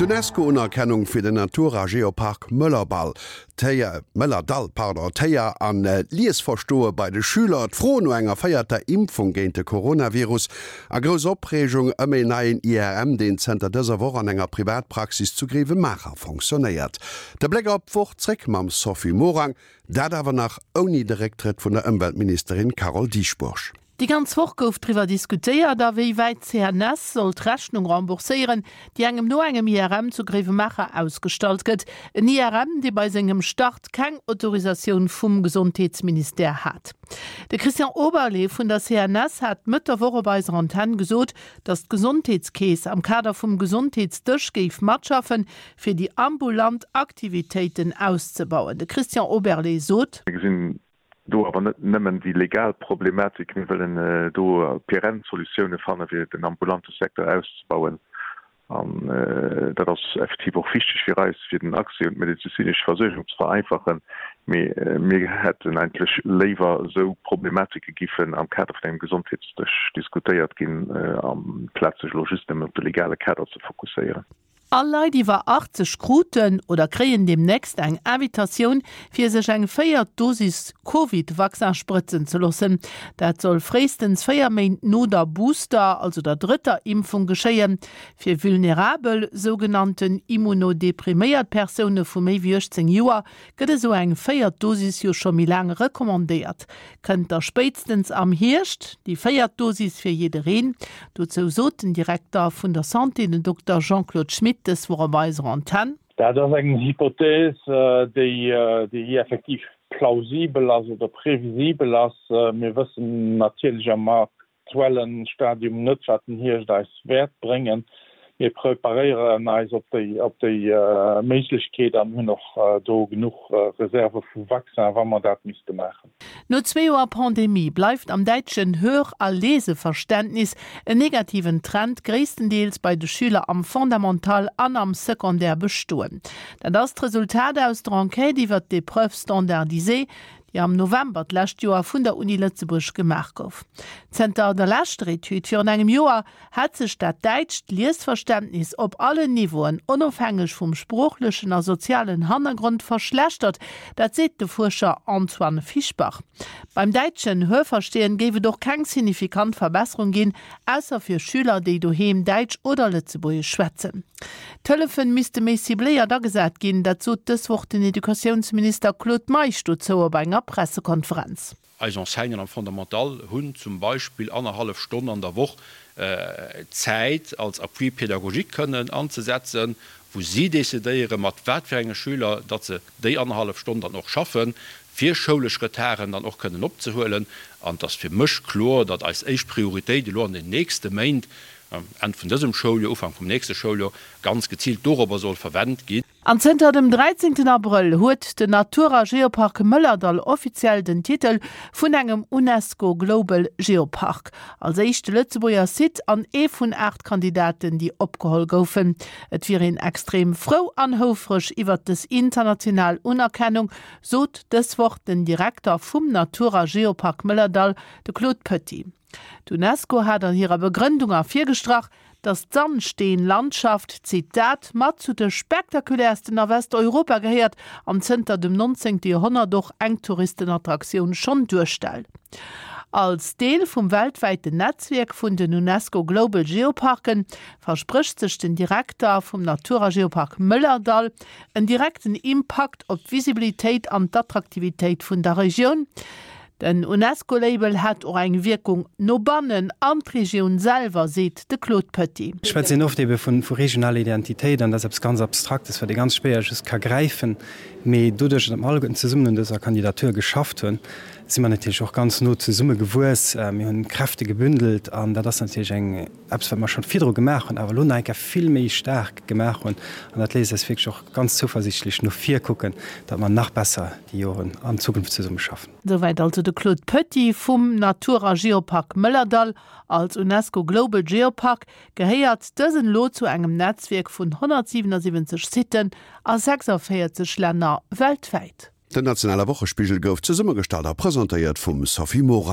D'Unesco-Unerkennung fir den Natur a Geopark Mëllerball, d'Héier, Mëllerdall, pardon, d'Héier an d'Liesverstoe bei de Schüler, d'Fro no enger véierter Impfung géint de Coronavirus a grouss Opreegung ëm een neien IRM, deen zënter dëser Woch an enger Privatpraxis zu Grevenmacher fonctionnéiert. De Bléck op d'Woch zréck mam Sophie Morang, dat awer nach ouni de Récktrëtt vun der Ëmweltministerin Carole Dieschbourg. Déi ganz Woch gouf driwwer diskutéiert, a wéi wäit d'CNS soll d'Rechnung rembourséieren, déi engem no engem IRM zu Gréiwemaacher ausgestallt gëtt. En IRM, dee bei sengem Start keng Autorisatioun vum Gesondheetsministère hat. De Christian Oberlé vun der CNS hat Mëtt der Woch op eiser Antenn gesot, datt d'Gesondheetskeess am Kader vum Gesondheetsdësch géif matschaffen, fir déi ambulant Aktivitéiten auszebauen. De Christian Oberlé sot. Mir gesinn Do awer net nëmmen déi legal Problematik, mir wëllen do perenn Solutioune fanne fir den ambulante Secteur auszebauen. An dat ass effektiv och wichteg fir eis, fir den Accès un d'medezinesch Versuergung ze vereinfachen. Mee mir hätten eigentlech léiwer, esou Problematike giffen am Kader vun engem Gesondheetsdësch diskutéiert ginn, amplaz sech elo just nëmmen op de legale Kader ze fokusséieren. All Leit iwwer 80 kruten oder kréien deemnächst eng Invitatioun, fir sech eng véiert Dosis Covid-Vaccin sprëtzen ze loossen. Dat soll fréistens 4 Méint no der Booster, also der drëtter Impfung geschéien. Fir vulnerabel, sougenannten immunodepriméiert Persoune vu méi wéi 18 Joer gëtt esou eng véiert Dosis jo scho méi laang recommandéiert. Kënnt da spéitstens am Hierscht déi véiert Dosis fir jiddereen. Dozou sot den Direkter vun der Santé, den Dokter Jean-Claude Schmit, dës Woch op eiser Antenn. Dat ass eng Hypothèse, déi effektiv plausibel ass oder previsibel ass. Mir wëssen natierlech am aktuellen Stadium net, wat den Hierscht eis wäert bréngen. Mir preparéieren eis op déi op déi Méiglechkeet an hunn och do genuch Reserve vu Vaccin, wa mer dat misste maachen. No zwee Joer Pandemie bleift am däitschen Hör a Leseverständnis en negativen Trend gréisstendeels bei de Schüler am Fondamental an am Secondaire bestoen. Dat ass d'Resultat aus der Enquête iwwert d'Épreuves standardisées, déi am November d'lescht Joer vun der Uni Lëtzebuerg gemaach gouf. Zënter der leschter Etüd virun engem Joer hätt sech dat däitscht Liesverständnis op allen Niveauen, onofhängeg vum sproochlechen a sozialen Hannergrond, verschlechtert. Dat seet de Fuerscher Antoine Fischbach. Beim däitschen Hörverstehen géif et och keng signifikant Verbesserung ginn, ausser fir Schüler, déi doheem Däitsch oder Lëtzebuergesch schwätzen. D'Hëllefen misste méi cibléiert agesat ginn, dat sot dës Woch den Educatiounsminister Claude Meisch dozou op enger Pressekonferenz. Eis Enseignanten am Fondamental hunn zum Beispill annerhallef Stonn an der Woch Zäit als Appui pédagogique kënnen anzesetzen, wou si decidéieren, mat wat fir enge Schüler datt se déi annerhallef Stonn dann och schaffen, fir schoulesch Retarden dann och kënnen opzehuelen. An et ass fir mech kloer, datt eis éischt Prioritéit elo an den nächste Méint, Enn vun dësem Schouljoer, Ufank vum nächste Schouljoer, ganz geziilt dorobber soll verwennt ginn. An zënter dem 13 Abrëll huet den Natur a Geopark Mëllerdall offiziell den Titel vun engem UNESCO Global Geopark. Als éischte Lëtzebuerger Site an ee vun 8 Kandidaten, déi opgeholl goufen. Et wier een extrem frou an houfreg iwwert dës international Unerkennung, sot dës Woch den Direkter vum Natur a Geopark Mëllerdall, de Claude Poetty. D'UNESCO hat an hirer Begrëndung ervirgestrach, datt d'Sandsteenlandschaft, Zitat, mat zu de spektakuläersten a Westeuropa gehéiert an zënter dem 19. Joerhonnert och eng Touristenattraktioun schonn duerstellt. Als Deel vum weltwäiten Netzwierk vun den UNESCO Global Geoparken versprécht sech den Direkter vum Natur a Geopark Mëllerdall en direkten Impakt op d'Visibilitéit an d'Attraktivitéit vun der Regioun. Den UNESCO-Label hätt och eng Wierkung no bannen an d'Regioun selwer, seet de Claude Poetty. Ech schwätzen oft ebe vu regionaler Identitéit an dat ass eppes ganz Abstraktes, wat ee ganz schwéier just ka gräifen. Mee doduerch, datt mer alleguerten zesummen un dëser Kandidatur geschafft hunn, si mer natierlech och ganz no zesumme gewuess. Mir hunn Kräfte gebündelt an dat ass natierlech eng, eppes wat mer schonn virdru gemaach hunn, awer elo nach eng Kéier vill méi staark gemaach hunn. An dat léisst eis wierklech och ganz zouversiichtlech no vir kucken, datt mer nach besser déi Joren an Zukunft zesumme schaffen. Souwäit also de Claude Poetty vum Natur a Geopark Mëllerdall. Als UNESCO Global Geopark gehéiert dësen elo zu engem Netzwierk vun 177 Siten a 46 Länner weltwäit. Den nationale Wochespigel gouf zesummegestallt a presentéiert vum Sophie Morang.